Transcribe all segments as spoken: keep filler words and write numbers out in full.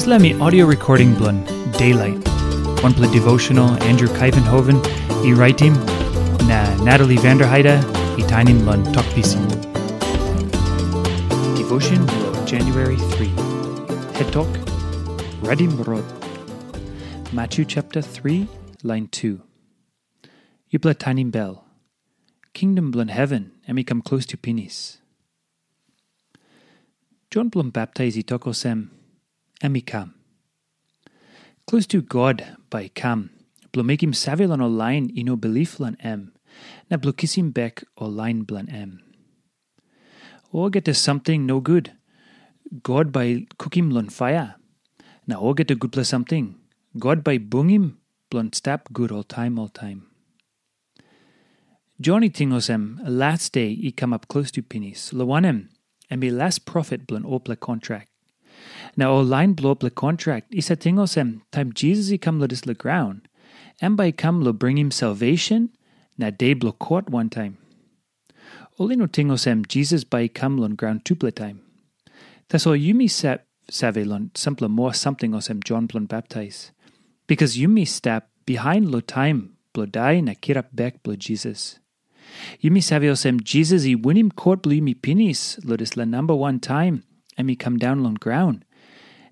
Dispela mi audio recording bilong Daylight. Wanpela devotional Andrew Kaivenhoven i raitim, na Natalie Vanderheide i tainim long Tok Pisin. Devotion bilong January three. Het tok, Redim Rot. Matthew chapter three, line two. Yupela tainim bel. Kingdom bilong heven em i kam klostu pinis. Jon bilong baptais i tok olsem, em i kam. Klostu God bai i kam, bilong mekim save long ol lain i no bilip long em, na bilong kisim bek ol lain bilong em. Olgeta samting nogut, God bai i kukim long paia, na olgeta gutpela samting, God bai i bungim bilong stap gut oltaim oltaim. Jon i ting olsem, las de i kamap klostu pinis, long wanem, em i las profet bilong olpela kontrak. Na ol lain bilong olpela kontrak i save ting olsem, taim Jisas i kam long dispela graun, em bai i kam long bringim salvesen na de bilong kot wantaim. Ol i no ting olsem, Jisas bai i kam long graun tupela taim. Tasol yumi sa- save long sampela moa samting olsem Jon bilong baptais, bikas yumi stap bihain long taim bilong dai na kirap bek bilong Jisas. Yumi save olsem, Jisas i winim kot bilong yumi pinis long dispela namba wan taim em i kam daun long graun,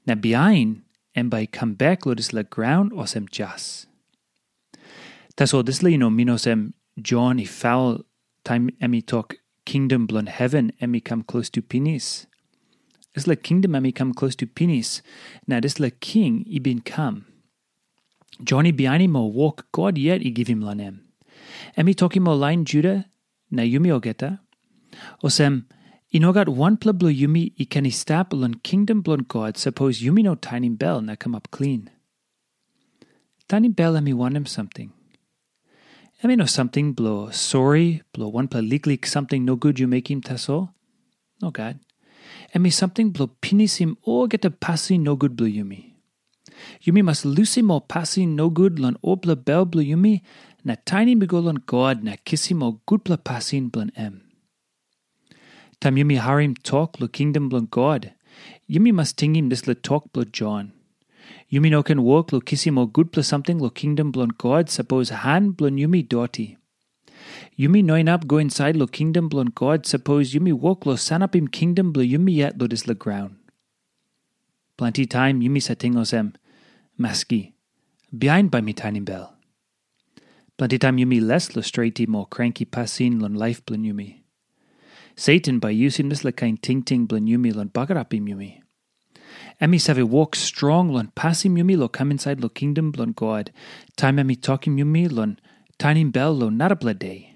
na bihain em bai i kam bek long dispela graun olsem jas. Tasol dispela i no min olsem Jon i faul taim em i tok, kingdom bilong heven em i kam klostu pinis. Dispela kingdom em i kam klostu pinis, na dispela king i bin kam. Jon i bihainim ol wok God yet i givim long em. Em i tokim ol lain Juda na yumi olgeta, olsem, i no gat wanpela bilong yumi i ken i stap long kingdom bilong God sapos yumi no tainim bel na kamap klin. Tainim bel em i wanem samting? Em i no samting bilong sori bilong wanpela liklik samting nogut yu mekim tasol. Nogat. Em i samting bilong pinisim olgeta pasin nogut bilong yumi. Yumi mas lusim ol pasin nogut long olpela bel bilong yumi, na tainim i go long God na kisim ol gutpela pasin bilong em. Taim yumi harim tok long kingdom bilong God, yumi mas tingim dispela tok bilong Jon. Yumi no ken wok long kisim ol gutpela samting long kingdom bilong God sapos han bilong yumi doti. Yumi no inap go insait long kingdom bilong God sapos yumi wok long sanapim kingdom bilong yumi yet long dispela graun. Planti taim yumi save ting olsem, maski, bihain bai mi tainim bel. Planti taim yumi les long stretim ol kranki pasin long laip bilong yumi. Satan bai yusim dispela kain tingting bilong yumi long bagarapim yumi. Em i save wok strong long pasim yumi long kam insait long kingdom bilong God, taim em i tokim yumi long tainim bel long narapela de.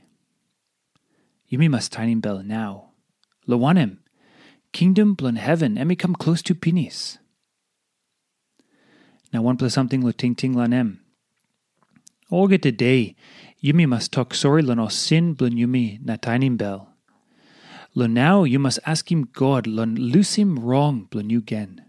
Yumi mas tainim bel nau. Long wanem, kingdom bilong heven em i kam klostu pinis. Na wanpela samting long tingting long em. Olgeta de, yumi mas tok sori long ol sin bilong yumi na tainim bel. Long nau yu mas askim God long lusim rong bilong yu gen.